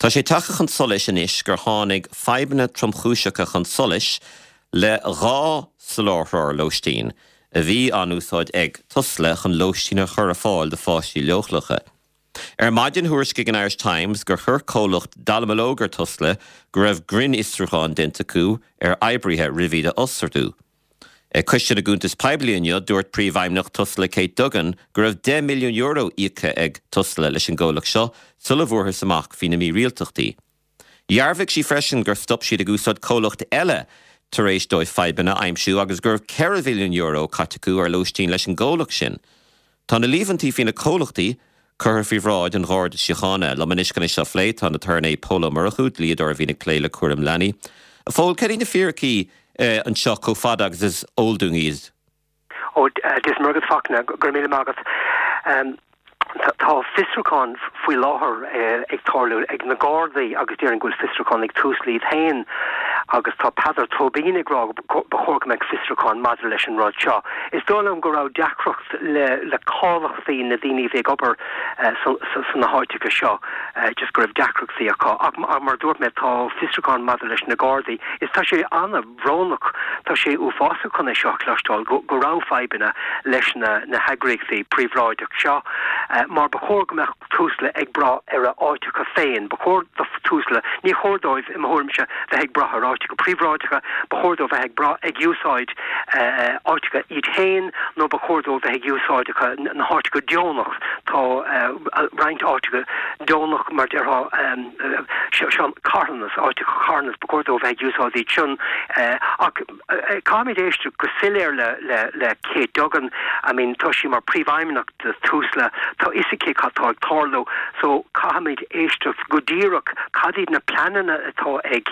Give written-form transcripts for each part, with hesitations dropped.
Tá sé tagtha chun solais anois gur tháinig fadhbanna tromchúiseacha chun solais le 2 soláthróir lóistín a bhí á n-úsáid ag Tusla chun lóistín a chur ar fáil do pháistí leochaileacha. Ar maidin thuairiscigh an Irish Times gur chuir comhlacht dallamullóg ar Tusla go raibh grinnfhiosrúchán déanta acu ar oibrithe roimh iad a fhostú. Ag Coiste na gCuntas Poiblí inniu, dúirt Príomhfheidhmeannach Tusla Kate Duggan go raibh €10 milliún íoctha ag Tusla leis an gcomhlacht seo sula bhfuarthas amach faoi na mírialtachtaí. Dhearbhaigh sí freisin gur stop siad ag úsáid comhlacht eile tar éis dóibh fadhbanna a aimsiú agus go raibh €4 mhilliún caite acu ar lóistín leis an gcomhlacht sin. Tá na líomhaintí faoi na comhlachtaí curtha faoi bhráid an Gharda Síochána. Liom anois chun é seo a phlé tá an tAturnae Pól Ó Murchú, dlíodóir a bhíonn ag plé le cúram leanaí. A Phóil, céard iad na fíricí anseo chomh fada agus is eol dúinn iad? Ó, Dia is Muire agat, Fachtna, go raibh míle maith agat. Tá fiosrúchán faoi láthair ag tarlú ag na Gardaí agus déarfainn go bhfuil fiosrúchán ag Tusla iad féin agus tá Peadar Tóibín ag rá go ba chóir go mbeadh fiosrúchán maidir leis an rud seo. Is dóigh liom go raibh deacracht le le cáilíochtaí na daoine a bhí ag obair sna háiteacha seo, just go raibh deacrachtaí acu. Ach mar a dúirt mé, tá fiosrúchán maidir leis na Gardaí. Is tá sé an-bhrónach, tá sé uafásach chun é seo a chloisteáil, go go raibh fadhbanna leis na na heagraíochtaí príobháideach seo, mar ba chóir go mbeadh Tusla ag brath ar a áiteacha féin. Ba chóir do Tusla, ní chóir dóibh, i mo thuairimse, bheith ag brath ar áiteacha príobháideacha, ba chóir dóibh bheith ag brath, ag úsáid áiteacha iad féin nó ba chóir dóibh bheith ag úsáideacha na háiteacha deonach. Tá roinnt áiteacha deonach, mar déarfá, seo carthanas, áiteacha carthanas, ba chóir dóibh bheith ag úsáid iad sin. Ach caithfimid éisteacht go soiléir le le le Kate Duggan, I mean tá sí mar príomhfheidhmeannach de Tusla, tá fhios aici cad tá ag tarlú so caithfimid éisteacht go díreach cad iad na pleananna atá ag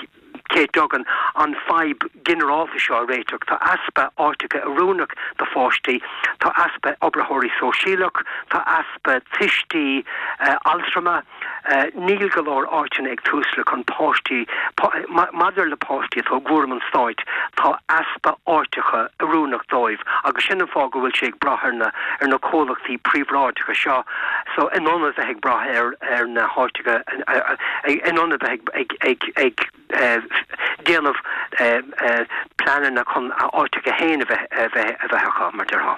Kate Duggan an fadhb ginearálta seo a réiteach. Tá easpa áiteacha oiriúnach do pháistí, tá easpa oibritheoirí sóisialach, tá easpa tuistí altrama, Níl go leor áiteanna ag Tusla chun páistí, maidir le páistí atá i gcúram an stáit, tá easpa áiteacha oiriúnach dóibh agus sin an fáth go bhfuil sé ag brath ar na ar na comhlachtaí príobháideacha seo so in ionad bheith ag brath ar ar na háiteacha in ionad bheith ag ag ag ag déanamh pleananna chun a áiteacha féin a bheith a bheith a bheith acu mar déarfá.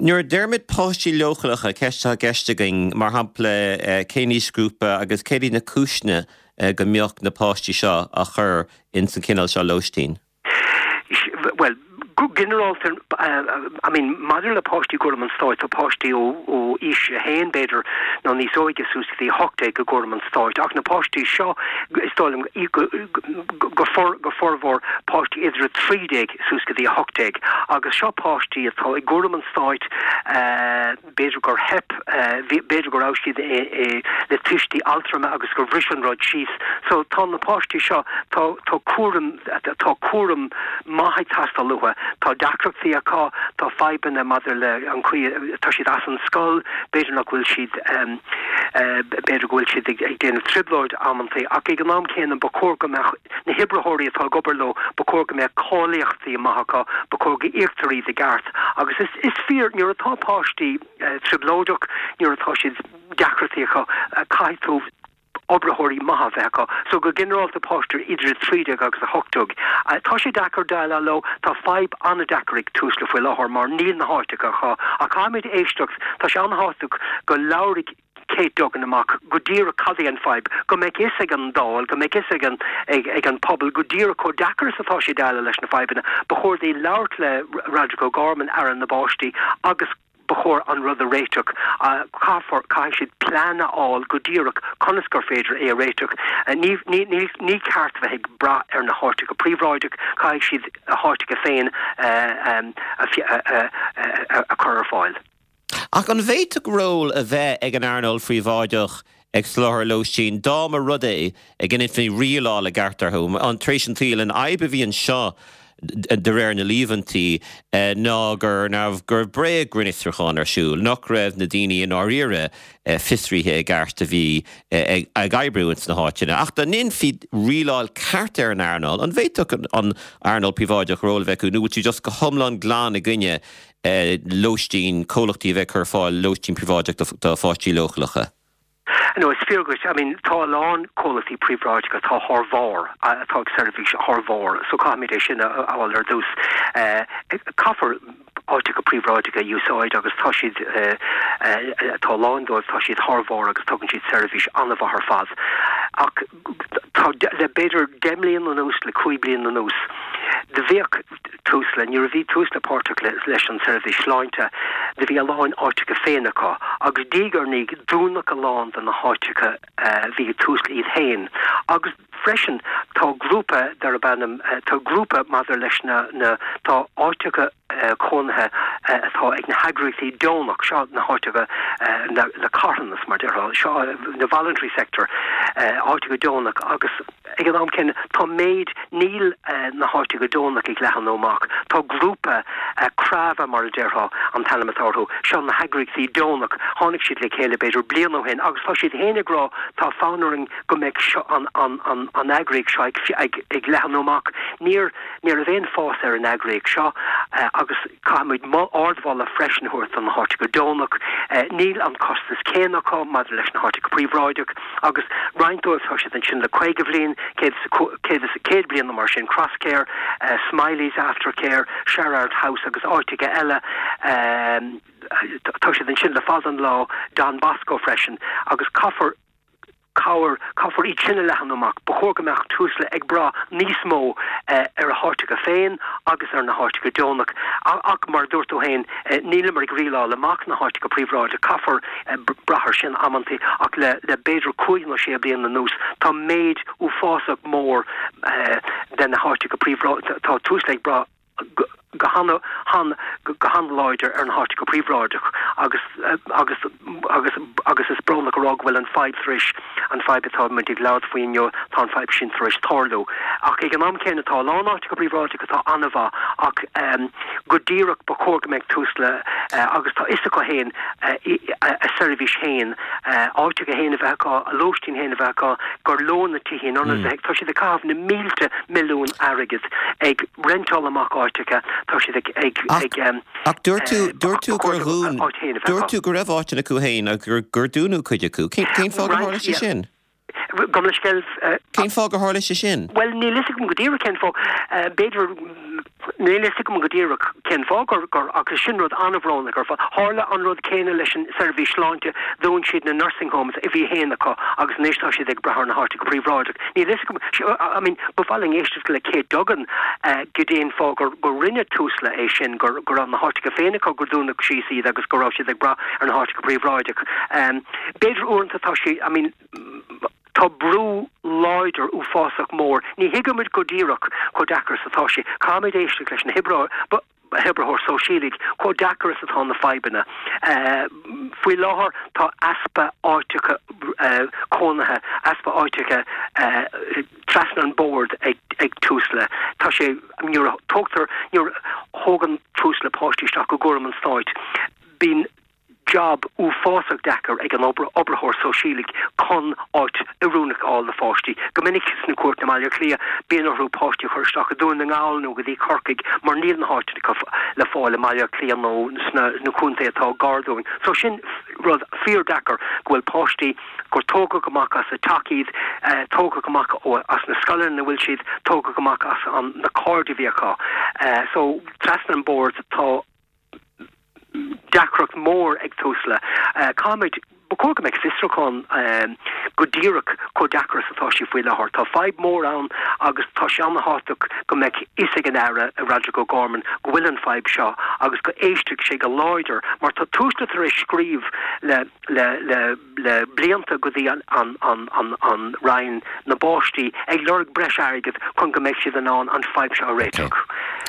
Nuair a deirimid páistí leochaileacha, ceist atá i gceist againn, mar shampla, cén aoisghrúpa agus céard iad na cúiseanna go mbeadh na páistí seo á chur ins an chineál seo lóistín? Bhuel, go ginearálta, I mean, maidir le páistí i gcúram an stáit, tá páistí ó aois a haon, b'fhéidir, nó níos óige suas go dtí 18 i gcúram an stáit, ach na páistí seo, is dóigh liom, go formhór, páistí idir 13 suas go dtí 18 agus seo páistí atá i gcúram an stáit, b'fhéidir gur theip, b'fhéidir go raibh siad le tuistí altrama agus gur bhris an rud síos. So tá na páistí seo, tá tá cúram, tá cúram maith ag teastáil uathu, tá deacrachtaí acu, tá fadhbanna maidir le an chaoi, tá siad as an scoil, b'fhéidir nach bhfuil siad, b'fhéidir go bhfuil siad ag déanamh trioblóid amantaí ach ag an am céanna ba chóir go mbeadh, Na hoibritheoirí atá ag obair leo, ba chóir go mbeadh cáilíochtaí maith acu, ba chóir go íoctar iad i gceart. Agus is, is fíor, nuair atá páistí trioblóideach, nuair atá siad, deacrachtaí acu, caithfidh tú oibritheoirí maithe a bheith acu. So go ginearálta páistí idir 13 agus 18. Tá sé deacair déileáil leo, tá fadhb an-deacair ag Tusla faoi láthair mar níl na háiteacha acu. Ach caithfimid éisteacht, tá sé an-thábhachtach go labhraigh Kate Duggan amach go díreach cad é an fadhb, go mbeidh fhios ag an Dáil, go mbeidh fhios ag an ag an pobal go díreach chomh deacair is atá sé déileáil leis na fadhbanna. Ba chóir di labhairt le Roderic O'Gorman, Aire na bPáistí, agus ba chóir an rud a réiteach. Caithfear, caithfidh siad plean a fháil go díreach conas gur féidir é a réiteach. Ní, ní, ní, ní ceart bheith ag brath ar na háiteacha príobháideach, caithfidh siad a háiteacha féin a, a, a, a chur ar fáil. Ach an bhféadfadh ról a bheith ag an earnáil phríobháideach ag soláthar lóistín dá mba rud é go ndéanfaí rialáil i gceart orthu? Tar éis an tsaoil, an fhadhb a bhí anseo de réir na líomhaintí ná go raibh go raibh bréag-ghrinnfhiosrúchán ar siúl, nach raibh na daoine i ndáiríre fiosraithe i gceart a bhí ag oibriú ins na háiteanna. Ach dá ndéanfaí rialáil ceart ar an earnáil, an bhféadfadh an earnáil phríobháideach ról a bheith acu nó bhfuil tú just go hiomlán glan i gcoinne lóistín, comhlachtaí a bheith ag cur ar fáil lóistín príobháideach do pháistí leochaileacha. No, is fíor dhuit. I mean, tá a lán comhlachtaí príobháideacha atá thar bharr, atá ag seirbhís thar bharr, so caithfimid é sin a fháil ar dtús. Caithfear áiteacha príobháideacha a úsáid agus tá siad, tá a lán dóibh, tá siad thar bharr agus tugann siad seirbhís an-mhaith ar fad. Ach tá, le b'fhéidir 10 mbliana anuas, le 5 bliana anuas, do bhíodh Tusla, nuair a bhí Tusla páirteach leis an tseirbhís sláinte, do bhí a lán áiteacha féin acu agus diaidh ar ndiaidh dúnadh a lán de na háiteacha a bhí ag Tusla iad féin agus freisin tá grúpa darb ainm, tá grúpa maidir leis na, na, tá áiteacha cónaithe atá ag na heagraíochtaí deonach, seo na háiteacha na carthanas mar déarfá, seo na voluntary sector, áiteacha deonach agus. Ag an am céanna, tá méid, níl na háiteacha deonach ag leathanú amach. Tá grúpa, Crava mar a déarfá an t-ainm atá orthu, seo na heagraíochtaí deonach, tháinig siad le chéile b'fhéidir bliain ó shin agus tá siad féin ag rá tá fonn orainn go mbeidh seo, an, an, an, an eagraíocht seo ag, ag, ag leathanú amach. Níor, ní raibh aon fás ar an eagraíocht seo agus caithfimid ardmholadh freisin a thabhairt do na háiteacha deonach. Níl an costas céanna acu maidir leis na háiteacha príobháideach. Agus roinnt dóibh tá siad ansin le 50 bhliain, 100 bliain nó mar sin, Crosscare, Smiley's Aftercare, Sherrard House agus áiteacha eile, tá siad ansin le fada an lá, Don Bosco freisin, agus caithfear cabhair, caithfear iad sin a leathanú amach. Ba chóir go mbeadh Tusla ag brath níos mó ar a háiteacha féin agus ar na háiteacha deonach. Ach mar a dúirt tú féin, níleamar ag rialáil amach na háiteacha príobháideach, caithfear brath air sin amantaí ach le le b'fhéidir cúig nó sé bliana anuas tá méid uafásach mór de na háiteacha príobháideach, tá Tusla ag brath go han han go han-láidir ar na háiteacha príobháideach agus agus agus agus is brónach a rá go bhfuil an fadhb tar éis an fadhb atá muid ag labhairt faoi inniu, tá an fadhb sin tar éis tarlú. Ach ag an am céanna tá a lán áiteacha príobháideacha atá an-mhaith ach go díreach ba chóir go mbeadh Tusla agus tá fhios acu féin a seirbhís féin, áiteacha féin a bheith acu, a lóistín féin a bheith acu, gur leo na tithe in ionad bheith, tá siad ag caitheamh na mílte milliún airgid ag reinteáil amach áiteacha, tá siad ag, ag, ag. Ach dúirt tú, dúirt tú gur dhún, dúirt tú go raibh áiteanna acu féin agus gur, gur dúnadh cuid acu. Cén, cén fáth gur tharla sé sin? Gabh mo leithscéal. Cén fáth gur tharla sé sin? Bhuel, níl fhios agam go díreach cén fáth. B'fhéidir, níl fhios agam go díreach cén fáth gur, gur, ach sin rud an-bhrónach ar fad. Tharla an rud céanna leis an seirbhís sláinte, dhún siad na nursing homes a bhí féin acu agus anois tá siad ag brath ar na háiteacha príobháideach. Níl fhios agam, I mean, ba mhaith linn éisteacht le Kate Duggan goidé an fáth gur, gur rinne Tusla é sin, gur, go raibh na háiteacha féin acu, gur dúnadh síos iad agus go raibh siad ag brath ar na háiteacha príobháideach. B'fhéidir uaireanta tá sé, I mean, tá brú láidir uafásach mór, ní thuigimid go díreach chomh deacair is atá sé. Caithfimid éisteacht leis na hoibritheoir sóisialaigh chomh deacair is atá na fadhbanna. Faoi láthair tá easpa áiteacha cónaithe, easpa áiteacha trasna an bord ag Tusla. Tá sé, nuair a tógtar, nuair a thógann Tusla páistí isteach i gcúram an stáit, bíonn jab uafásach deacair ag an oibritheoir sóisialaigh chun áit oiriúnach a fháil do pháistí. Go minic sna cúirteanna i mBaile Átha Cliath, bíonn orthu páistí a chur isteach i Dún na nGall nó go dtí Corcaigh mar níl na háiteanna le fáil i mBaile Átha Cliath nó sna contaetha atá gar dúinn. So sin rud fíor-deacair go bhfuil páistí gur tógadh amach as a dteach iad, tógadh amach as na scoileanna ina bhfuil siad, tógadh amach as na cairde a bhí acu. So trasna an bord tá. deacracht mór ag Tusla. Caithfimid, ba chóir go mbeadh fiosrúchán go díreach chomh deacair is atá sé faoi láthair. Tá fadhb mór ann agus tá sé an-thábhachtach go mbeadh fhios ag an Aire, Roderic O'Gorman, go bhfuil an fadhb seo agus go éistfeadh sé go láidir mar tá Tusla tar éis scríobh le le le le blianta go dtí an an Roinn na bPáistí ag lorg breis airgid chun go mbeidh siad in ann an fadhb seo a réiteach.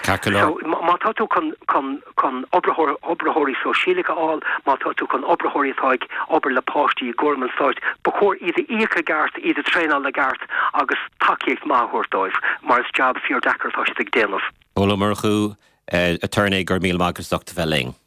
So má tá tú chun chun chun oibritheoir oibritheoirí sóisialacha a fháil, má tá tú chun oibritheoirí atá ag obair le páistí i gcúram an stáit, ba chóir iad a íoc i gceart, iad a traenáil i gceart agus tacaíocht maith a thabhairt dóibh mar is jab fíor deacair atá siad ag déanamh. Pól Ó Murchú, Aturnae, go raibh míle maith agat as ucht a bheith linn.